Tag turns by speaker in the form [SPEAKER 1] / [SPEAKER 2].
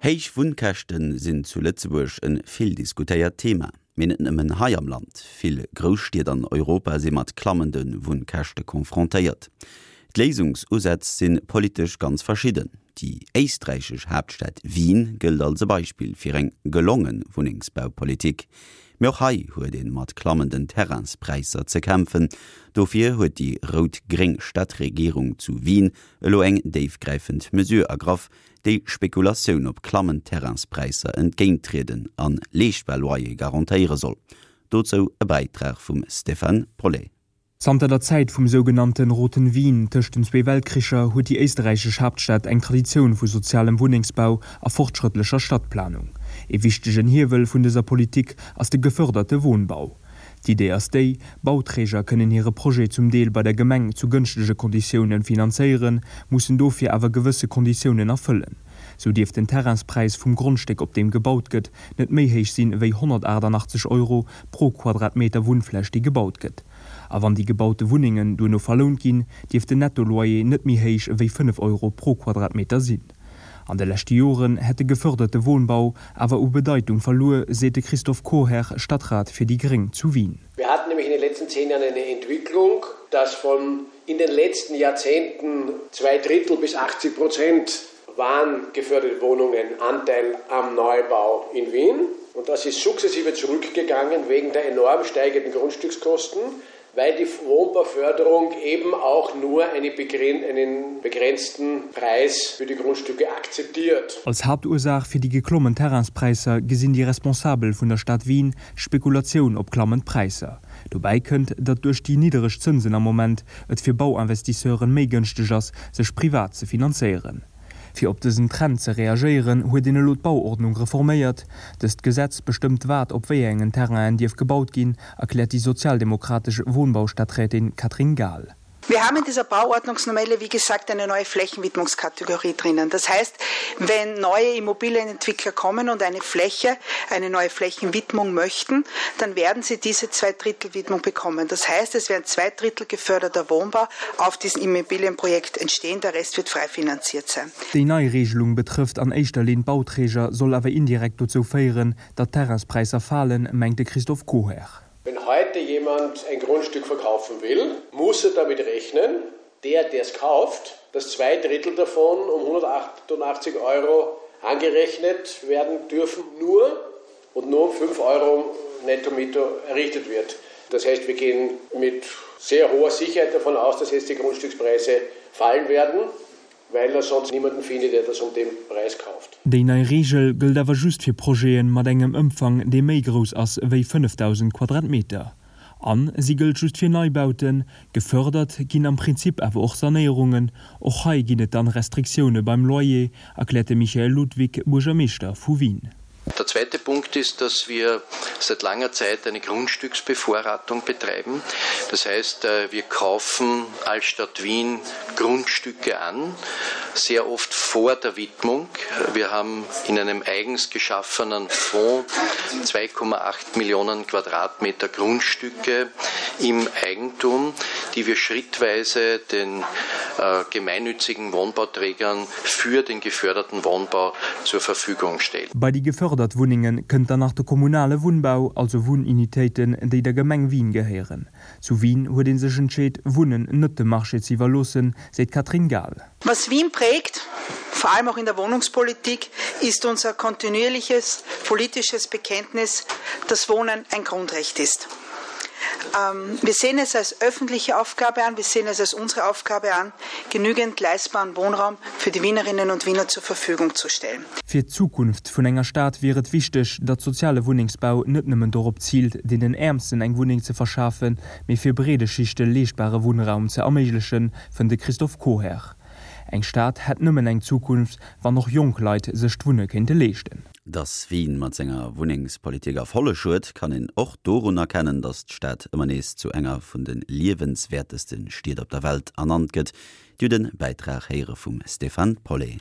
[SPEAKER 1] Héich Wunnkäschte sinn zu Lëtzebuerg e vill diskutéiert Thema. Mee net nëmmen hei am Land, vill Grousstied an Europa si mat klammende Wunnkäschte confrontéiert. D'Léisungsusätz si politesch ganz verschidden. Déi éisträichesch Haaptstad Wien gëllt als e Beispill fir eng gelonge Wunnengsbaupolitik. Mee och hei huet ee mat klammenden Terrainspräisser ze kämpfen. Dofir huet déi rout-gréng Stadregierung zu Wien elo eng déifgräifend Mesure ergraff, déi Spekulatioun op klammend Terrainspräisser entgéinttrieden an leeschtbar Loyere garantéiere soll. Dozou e Bäitrag vum Stéphane Paulet.
[SPEAKER 2] Zanter der Zäit vum sougenannten Roten Wien tëscht den zwee Weltkricher huet déi éisterräichesch Haaptstad eng Traditioun vu sozialem Wunnengsbau a fortschrëttlecher Stadtplanung. Ee wichtegen Hiewel vun dëser Politik ass de geförderte Wohnbau. D'Idee ass déi, Bauträger kënnen hire Projet zum Deel bei der Gemeng zu gënschtege Konditiounen finanzéieren, mussen dofir awer gewësse Konditiounen erfëllen. Sou dierf den Terrainspräis vum Grondstéck op deem gebaut gëtt, net méi héich sinn ewéi 188 Euro pro Quadratmeter Wunnfläch déi gebaut gëtt. A wann déi gebaute Wunnengen duerno verlount ginn, dierf den Netto-Loyer net méi héich ewéi 5 Euro pro Quadratmeter sinn. An de leschte Joren hätt de geförderte Wohnbau awer u Bedeitung verluer, seet de Christoph Chorherr, Stadtrat fir déi Gréng zu Wien.
[SPEAKER 3] Wir hatten nämlich in den letzten zehn Jahren eine Entwicklung, dass von in den letzten Jahrzehnten zwei Drittel bis 80 Prozent waren geförderte Wohnungen Anteil am Neubau in Wien. Und das ist sukzessive zurückgegangen wegen der enorm steigenden Grundstückskosten weil die Wohnbauförderung eben auch nur eine begren einen begrenzten Preis für die Grundstücke akzeptiert.
[SPEAKER 2] Als Haaptursaach fir déi geklommen Terrainspräisser gesinn déi Responsabel vun der Stad Wien d'Spekulatioun op klammend Präisser. Dobäi kënnt, datt duerch déi niddereg Zënsen am Moment et fir Bauinvestisseuren méi gënschteg ass, sech privat ze finanzéieren. Fir op dësen Trend ze reagéieren, huet een elo d'Bauordnung reforméiert. Dëst Gesetz bestëmmt wat op wéi engen Terrainen dierf gebaut ginn, erkläert déi sozialdemokratesch Wohnbaustadträtin Katrin Gahl.
[SPEAKER 4] Wir haben in dieser Bauordnungsnovelle, wie gesagt, eine neue Flächenwidmungskategorie drinnen. Das heißt, wenn neue Immobilienentwickler kommen und eine Fläche, eine neue Flächenwidmung möchten, dann werden sie diese Zweidrittelwidmung bekommen. Das heißt, es werden zwei Drittel geförderter Wohnbau auf diesem Immobilienprojekt entstehen, der Rest wird frei finanziert sein.
[SPEAKER 2] Déi nei Regelung betrëfft an éischter Linn d'Bauträger, soll awer indirekt dozou féieren, datt d'Terrainspräisser falen, mengt de Christophe Koher.
[SPEAKER 3] Wenn heute jemand ein Grundstück verkaufen will, muss er damit rechnen, der, der es kauft, dass zwei Drittel davon um 188 Euro angerechnet werden dürfen, nur und nur um 5 Euro netto Miete errichtet wird. Das heißt, wir gehen mit sehr hoher Sicherheit davon aus, dass jetzt die Grundstückspreise fallen werden, weil er sonst niemanden findet, der das um den Preis kauft.
[SPEAKER 2] Déi nei Reegel gëllt awer just fir Projete mat engem Ëmfang, dee méi grouss ass wéi 5.000 Quadratmeter. A si gëllt just fir Neibauten. Gefërdert ginn am Prinzip awer och Sanéierungen. Och hei ginn et dann Restriktioune beim Loyer, erkläert de Michael Ludwig, Buergermeeschter vu Wien.
[SPEAKER 5] Der zweite Punkt ist, dass wir seit langer Zeit eine Grundstücksbevorratung betreiben. Das heißt, äh, wir kaufen als Stadt Wien Grundstücke an, sehr oft vor der Widmung. Wir haben in einem eigens geschaffenen Fonds 2,8 Millionen Quadratmeter Grundstücke im Eigentum, die wir schrittweise den äh, gemeinnützigen Wohnbauträgern für den geförderten Wohnbau zur Verfügung stellen.
[SPEAKER 2] Bei déi gefördert Wunnenge kënnt dann nach de kommunale Wunnbau, also Wunnunitéiten, déi der Gemeng Wien gehéieren. Zu Wien huet ee sech entscheet, Wunnen net dem Marché ze iwwerloossen, seet d'Katrin Gahl.
[SPEAKER 4] Was Wien prägt, vor allem auch in der Wohnungspolitik, ist unser kontinuierliches politisches Bekenntnis, dass Wohnen ein Grundrecht ist. Ähm, wir sehen es als öffentliche Aufgabe an, wir sehen es als unsere Aufgabe an, genügend leistbaren Wohnraum für die Wienerinnen und Wiener zur Verfügung zu stellen.
[SPEAKER 2] Fir d'Zukunft vun enger Stad wier et wichteg, datt soziale Wunnengsbau net nëmmen dorop ziilt, deenen Äermsten eng Wunneng ze verschafen, mee fir breede Schichte leeschtbare Wunnraum ze erméiglechen, fënnt de Christophe Koher. Eng Stad hätt nëmmen eng Zukunft, wann och jonk Leit sech d'Wunne kéinte leeschten.
[SPEAKER 1] Datt Wien mat senger Wunnengspolitik Erfolleg huet, kann een och dorun erkennen, datt d'Stad ëmmer nees zu enger vun de liewenswäerteste Stied op der Welt ernannt gëtt. Dir hutt e Bäitrag héiere vum Stéphane Paulet.